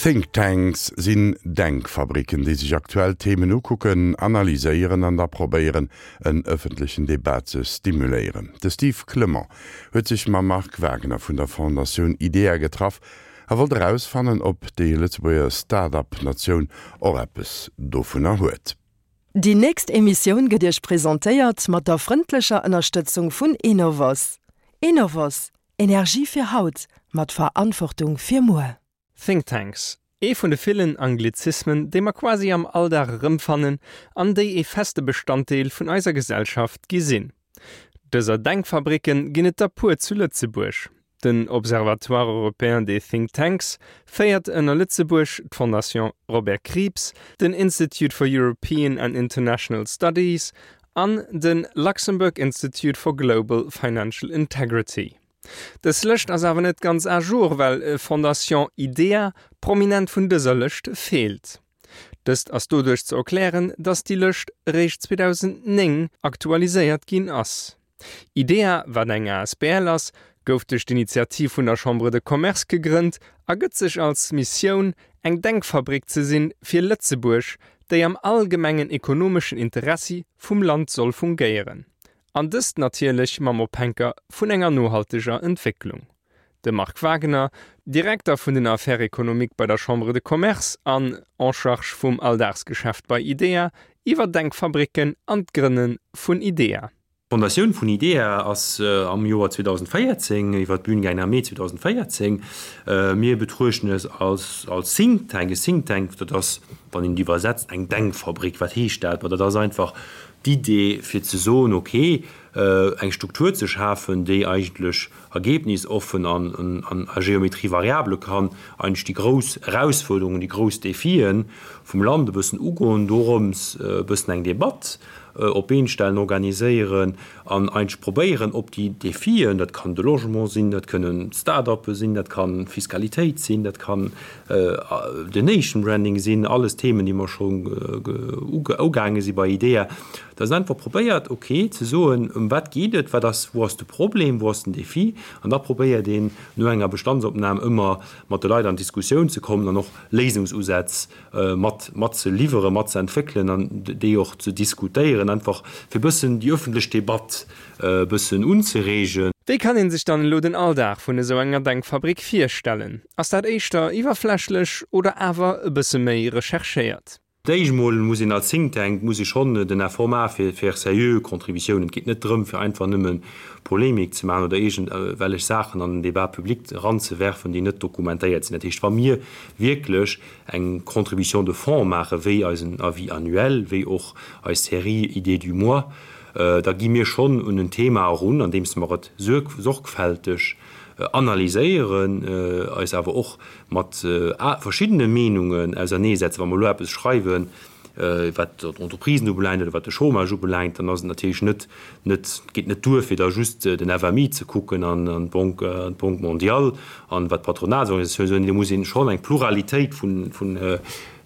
Think Tanks sinn Denkfabricken, déi sech aktuell Themen ukucken, analyséieren an da probéieren, en ëffentlechen Debat ze stimuléieren. De Steve Clement huet sech mam Marc Wagner vun der Fondatioun idea getraff a wollt erausfannen, ob déi Lëtzebuerger Start-up-Natioun och eppes dovunner huet. Déi nächst Emissioun gëtt Iech presentéiert mat der frëndlecher Ënnerstëtzung vun Enovos. Enovos, Energie fir haut, mat Verantwortung fir muer. Think Tanks, ee vun de villen Anglizismen, déi mer quasi am Alldag erëmfannen an déi ee feste Bestanddeel vun eiser Gesellschaft gi sinn. Dëser Denkfabricken ginn et der puer zu Lëtzebuerg. Den Observatoire européen des Think Tanks féiert ënner Lëtzebuerg d'Fondation Robert Krieps, den Institute for European and International Studies an de Luxembourg Institute for Global Financial Integrity. Dës Lëscht ass awer net ganz à jour, well Fondation idea prominent vun dëser Lëscht feelt. Dëst ass doduerch ze erklären, datt déi Lëscht eréischt 2009 aktualiséiert ginn ass. Idea, wat eng asbl ass, gouf duerch d'Initiativ vun der Chambre de Commerce gegrënnt a gëtt sech als Missioun, eng Denkfabrik ze sinn fir Lëtzebuerg, déi am allgemengen ekonomeschen Interessi vum Land soll fungéieren. An dëst natierlech mam Ophänker vun enger nohalteger Entwécklung. De Marc Wagener, Direkter vun den Affaires économiques bei der Chambre de Commerce an en charge vum Alldagsgeschäft bei idea, iwwer Denkfabricken an d'Grënne vun idea. D'Fondatioun vun idea ass am Joer 2014 iwwer d'Bün gaangen, am Mee 2014. Mir betruechten es als als Think Tank. E Think Tank, dat ass, wann een et iwwersetzt, eng Denkfabrik. Wat heescht dat? Ma dat ass einfach d'Idee fir ze soen, okay, eng Struktur ze schafen, déi eigentlech ergebnisoffen an a Géométrie variable kann eigentlech déi grouss Erausfuerderungen, déi grouss Defien vum Land e bëssen ugoen, dorëms e bëssen eng Debatt op d'Been stellen, organiséieren an eigentlech probéieren op déi Defien, dat kann de Logement sinn, dat kënnen Start-uppe sinn, dat kann Fiskalitéit sinn, dat kann den Nation Branding sinn, alles Themen, déi mer scho ugaange si bei idea, Dass een einfach probéiert, ok, ze soen, ëm wat geet et, wat ass, wou ass de Problem, wou ass den Défi, an da probéiert een no enger Bestandsopnam ëmmer mat de Leit an d'Diskussioun ze kommen an och Léisungsusätz mat mat ze liwweren, mat ze entwéckelen an déi och ze diskutéieren, einfach fir e bëssen déi öffentlech Debatt e bëssen unzereegen. Wéi kann een sech dann elo den Alldag vun esou enger Denkfabrik virstellen? Ass dat éischter iwwerflächlech oder awer e bësse méi recherchéiert? D'éischt mol muss een als Think Tank, muss ee schonn den Effort maache fir faire sérieux Contributiounen. Et geet net drëm, fir einfach nëmme Polemik ze maachen oder iergendwellech Saachen an den Débat public eranzewerfen, déi net dokumentéiert sinn. Dat heescht, wa mir wierklech eng Contribution de fond maachen, wéi eisen Avis annuel, wéi och eis Série Idées du mois, da gi mir schonn un en Thema erun, andeems mer et sorgfälteg analyséieren, eis awer och mat verschiddene Meenungen auserneesetzen. Wa mer elo eppes schreiwen, wat d'Entreprisen ubelaangt oder wat de Chômage ubelaangt, dann ass et natierlech net, net, geet net duer, fir da just den FMI ze kucken an d'Banque, d'Banque mondiale an wat d'Patronatsorganisatiounen soen. Do muss ee schonn eng Pluralitéit vun, vun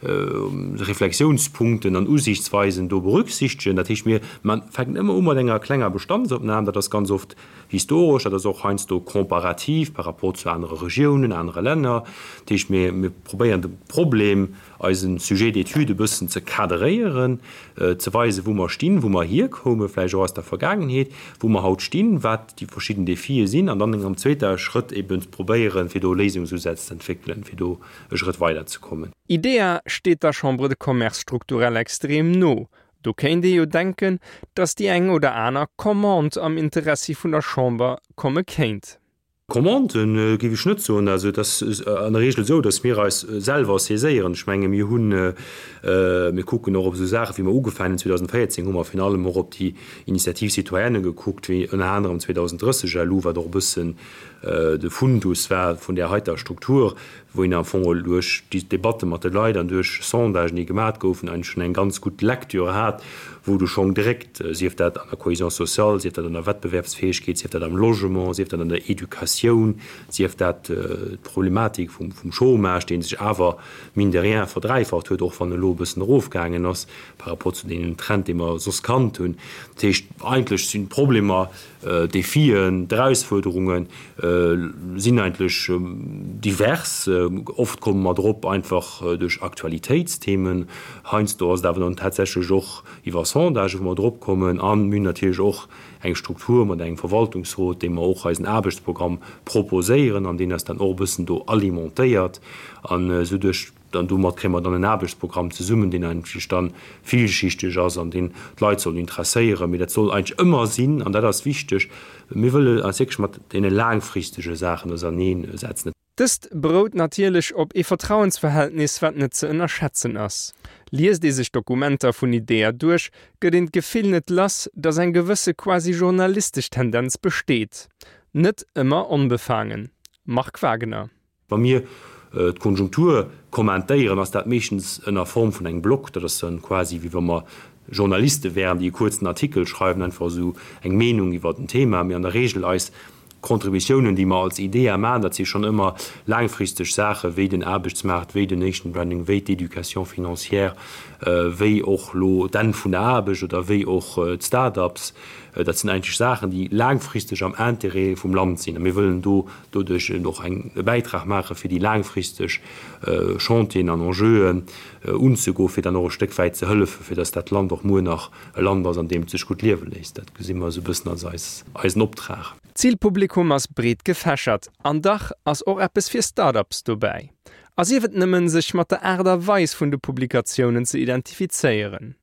Reflexiounspunkten an Usiichtsweisen do berücksichtegen. Dat heescht, mir fänken ëmmer u mat enger klenger Bestandsopnam. Dat ass ganz oft Historesch, dat ass och heiansdo comparativ par rapport zu anere Regiounen, anere Länner. Dat heescht, mir, mir probéieren de Problem, eise Sujet d'étude e bëssen ze kaderéieren, ze weisen, wou mer stinn, wou mer hierkoumen, vläicht och aus der Vergaangenheet, wou mer haut stinn, wat déi verschidden Defie sinn, an dann am zweeter Schrëtt eben ze probéieren, fir do Léisungsusätz ze entwéckelen, fir do e Schrëtt weiderzekommen. Idea steet der Chambre de Commerce strukturell extrem no, Do kéint ee jo denken, datt déi eng oder aner Commande am Interessi vun der Chamber komme kéint. Commande géif ech net soen. Also et ass an der Regel esou, datt mir eis selwer saiséieren. Ech menge mir hunn, mir kucken och op esou Saachen, wéi mer ugefaangen hunn 2014, hu mer virun allem och op déi Initiative citoyenne gekuckt, wéi ënner anerem 2030 LU, wat och e bëssen de Fundus war vun där heiter Struktur, wou een am Fong geholl duerch déi Debatte mat de Leit an duerch Sondagen, déi gemat goufen, eigentlech schonn eng ganz gutt Lecture hat, wou du schonn direkt, sief dat an der Cohésion sociale, sief dat an der Wettbewerbsfäegkeet, sief dat am Logement, sief dat an der Educatioun. d'Inflatioun, sief dat d'Problematik vum Chômage, dee sech awer mine de rien verdräifacht huet, och wann e lo e bëssen erofgaangen ass par rapport zu deenen Trend, dee mer soss kannt hunn. Dat heescht, eigentlech sinn d'Problemer, d'Defien, d'Erausfuerderunge sinn eigentlech divers. Oft komme mer drop einfach duerch Aktualitéitsthemen. Heiansdo ass et awer dann tatsächlech och iwwer Sondagen, wou mer drop kommen. A mir hunn natierlech och eng Struktur mat engem Verwaltungsrot, deem mer och eisen Aarbechtsprogramm proposéieren an deen eis dann och e bëssen do alimentéiert. An esou duerch, dann domat kréie mer dann en Aarbechtsprogramm zesummen, deen eigentlech dann villschichteg ass an deen d'Leit soll interesséieren. Mee dat soll eigentlech ëmmer sinn, an dat ass wichteg, mir wëlle eis wierklech mat deene laangfristege Saachen auserneensetzen. Dëst berout natierlech op ee Vertrauensverhältnis, wat net ze ënnerschätzen ass. Liest ee sech d'Dokumenter vun IDEA duerch, gëtt een d'Gefill net lass, datt eng gewësse quasi journalistesch Tendenz besteet. Net ëmmer onbefaangen. Marc Wagener. Wa mir d'Konjunktur kommentéieren, ass dat meeschtens ënner Form vun engem Blog. Dat ass dann quasi wéi wa mer Journaliste wären, déi e kuerzen Artikel schreiwen, einfach esou eng Meenung iwwert en Thema. Mee an der Regel eis D'Contributiounen, déi mer als IDEA maachen, dat si schonn ëmmer laangfristeg Saachen, wéi den Aarbechtsmaart, wéi den Nation Branding, wéi d'Éducation financière, wéi och elo d'Enn vun der Aarbecht oder wéi och d'Start-ups. Dat sinn eigentlech Saachen, déi laangfristeg am Intérêt vum Land sinn. A mir wëllen do doduerch och eng e Bäitrag maachen, fir déi laangfristeg Chantieren an Enjeuen unzegoen, fir dann och e Stéck wäit ze hëllefen, fir dass dat Land och muer nach e Land ass, an deem et sech gutt liewe léisst. Dat gesi mer esou e bëssen als eis, eisen Optrag. D'Zilpublikum ass breet gefächert, an dach ass och eppes fir Start-ups dobäi. A sief et nëmmen, sech mat der Aart a Weis vun de Publikatiounen ze identifizéieren.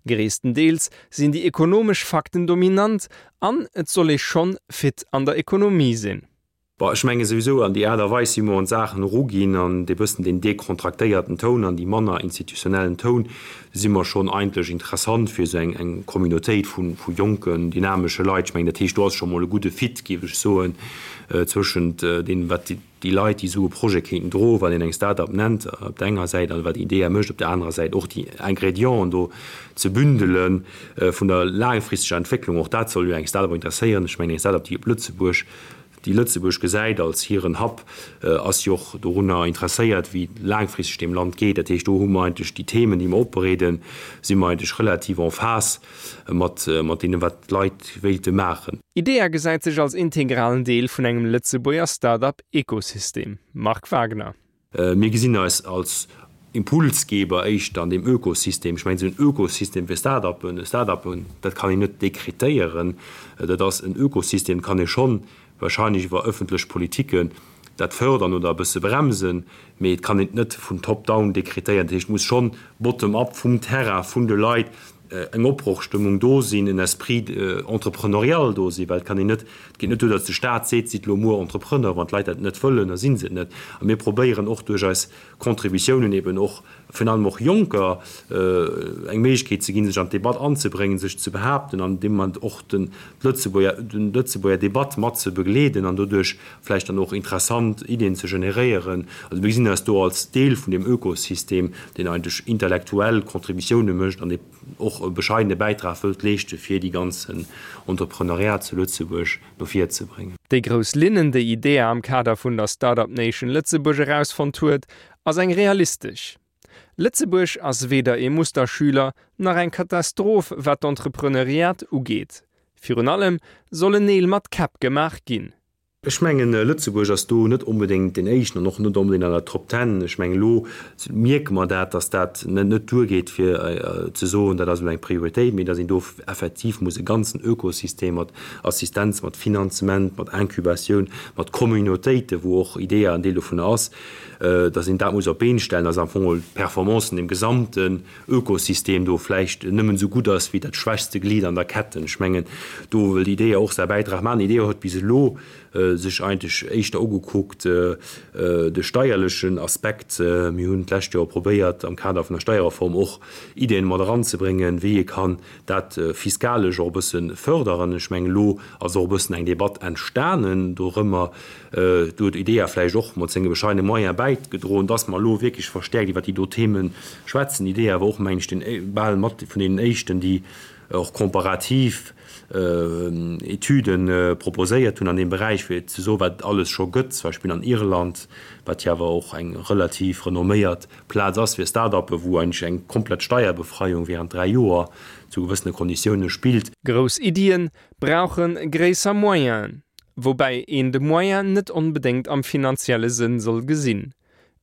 Gréisstendeels sinn déi ekonomesch Fakten dominant an et soll ee schonn fit an der Ekonomie sinn. Bon, ech menge souwisou, an déi Aart a Weis, wéi mer un d'Saachen eruginn, an dee bëssen deen dekontraktéierten Toun an déi manner institutionellen Toun, si mer schonn eigentlech interessant fir esou eng, eng Communautéit vu, vu jonken, dynamesche Leit. Ech mengen, dat heescht, do ass scho mol e gudde Fit, géif ech soen, zwëschent deem, wat déi Leit, déi esou e Projet kéinten droen, wat een eng Start-up nennt, op der enger Säit, an wat IDEA mécht op der anerer Säit, och déi Ingrédienten do ze bündele vun der laangfristeger Entwécklung. Och dat soll jo eng Start-up interesséieren. Ech mengen, eng Start-up, déi op Lëtzebuerg déi Lëtzebuerg gesäit als hiren Hub, ass jo och dorunner interesséiert, wéi et laangfristeg deem Land geet. Dat heescht, do hu mer eigentlech déi Themen, déi mer opbereeden, si mer eigentlech relativ en phase mat mat deenen, wat d'Leit wéilte maachen. IDEA gesäit sech als integralen Deel vun engem Lëtzebuerger Start-up-Ekosystem. Marc Wagner. Mir gesinn eis als Impulsgeber éischter an deem Ökosystem. Ech mengen, esou en Ökosystem fir Start-upen, Start-upen, dat kann een net dekretéieren. Dat ass en Ökosystem, kann ee schonn wahrscheinlech iwwer ëffentlech Politiken dat fördern oder e bësse bremsen, mee et kann een et net vun top down dekretéieren. Dat heescht, et muss schonn bottom up vum Terrain, vun de Leit eng Opbrochstëmmung do sinn, en Esprit entrepreneurial do sinn, well et kann een net, et geet net duer, datt de Staat seet, sidd elo muer Entrepreneur, wann d'Leit dat net wëllen, da si se et net. A mir probéieren och duerch eis Contributiounen eben och virun allem och Jonker eng Méiglechkeet ze ginn, sech an d'Debatt anzebréngen, sech ze behaapten an deem Moment och den Lëtzebuerger, den Lëtzebuerger Debatt mat ze begleeden an doduerch vläicht dann och interessant Iddien ze generéieren. Also mir gesinn eis do als Deel vun deem Ökosystem, deen eigentlech intellektuell Contributioune mécht an dee och e bescheidene Bäitrag wëllt leeschte fir déi ganzen Entrepreneuriat zu Lëtzebuerg no vir ze bréngen. Déi grouss Linnen, déi IDEA am Kader vun der Startup Nation Lëtzebuerg erausfonnt huet, ass eng realistesch. Lëtzebuerg ass weder ee Musterschüler nach eng Katastroph wat d'Entrepreneuriat ugeet. Virun allem sollen Neel mat Käpp gemaach ginn. Ech mengen, Lëtzebuerg ass do net onbedéngt deen Éischten an och net onbedéngt an der Top Ten. Ech mengen, elo mierke mer dat, dass dat net duergeet, fir ze soen, dat ass elo eng Prioritéit, mee dass een do effektiv muss e ganzen Ökosystem mat Assistenz, mat Finanzement, mat Incubatioun, mat Communautéiten, wou och IDEA en Deel dovunner ass, dass een dat muss op d'Been stellen, dass am Fong d'Performance vun deem gesamten Ökosystem do vläicht nëmmen esou gutt ass wéi dat schwächste Glied an der Ketten. Ech mengen, do wëll IDEA och säi Bäitrag maachen. IDEA huet bis elo sech eigentlech éischter ugekuckt de steierlechen Aspekt. Mir hunn d'lescht Joer probéiert, am Kader vun der Steierreform och Ideeën mat eranzebréngen, wéi ee kann dat fiskalesch och e bësse förderen. Ech mengen, elo ass och e bëssen eng Debatt entstanen dorëmmer. Do huet IDEA vläicht och mat senge bescheidene Moyen bäigedroen, dass mer elo wierklech verstäerkt iwwert déi do Themen schwätzen. IDEA war och, mengen ech, deen, bal mat vun deenen éischten, déi. och komparativ Etüde proposéiert hunn an deem Beräich, fir ze soen, wat et alles scho gëtt, zum Beispill an Irland, wat jo awer och eng relativ renomméiert Plaz ass fir Start-uppen, wou eigentlech eng komplett Steierbefreiung während 3 Joer zu gewëssene Konditioune spillt. Grouss Iddien brauche gréisser Moyenen, woubäi een de Moyen net onbedéngt am finanzielle Sënn soll gesinn.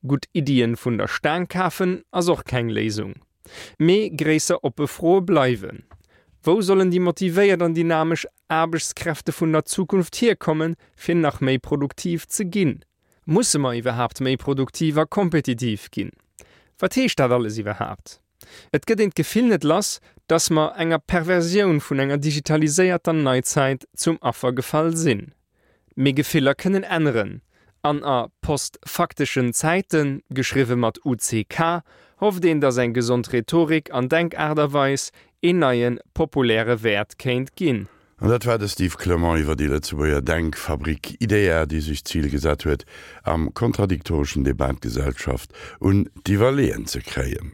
Gutt Iddien vun der Staang kafen ass och keng Léisung. Mee gréisser oppe Froe bleiwen, Wou sollen déi motivéiert an dynamesch Aarbechtskräfte vun der Zukunft hierkommen, fir nach méi produktiv ze ginn? Musse mer iwwerhaapt méi produktiv a kompetitiv ginn? Wat heescht dat alles iwwerhaapt? Et gëtt een d'Gefill net lass, dass mer enger Perversioun vun enger digitaliséierter Neizäit zum Affer gefall sinn. Mee Gefiller kënnen änneren, an a post-fakteschen Zäiten, geschriwwe mat UCK, hofft een, dass eng gesond Rhetorik an Denkaart a Weis een neie populäre Wäert kéint ginn. An dat war de Steve Clement iwwer déi Lëtzebuerger Denkfabrik IDEA, déi sech d'Zil gesat huet, am kontradiktoreschen Debat d'Gesellschaft un d'Iwwerleeën ze kréien.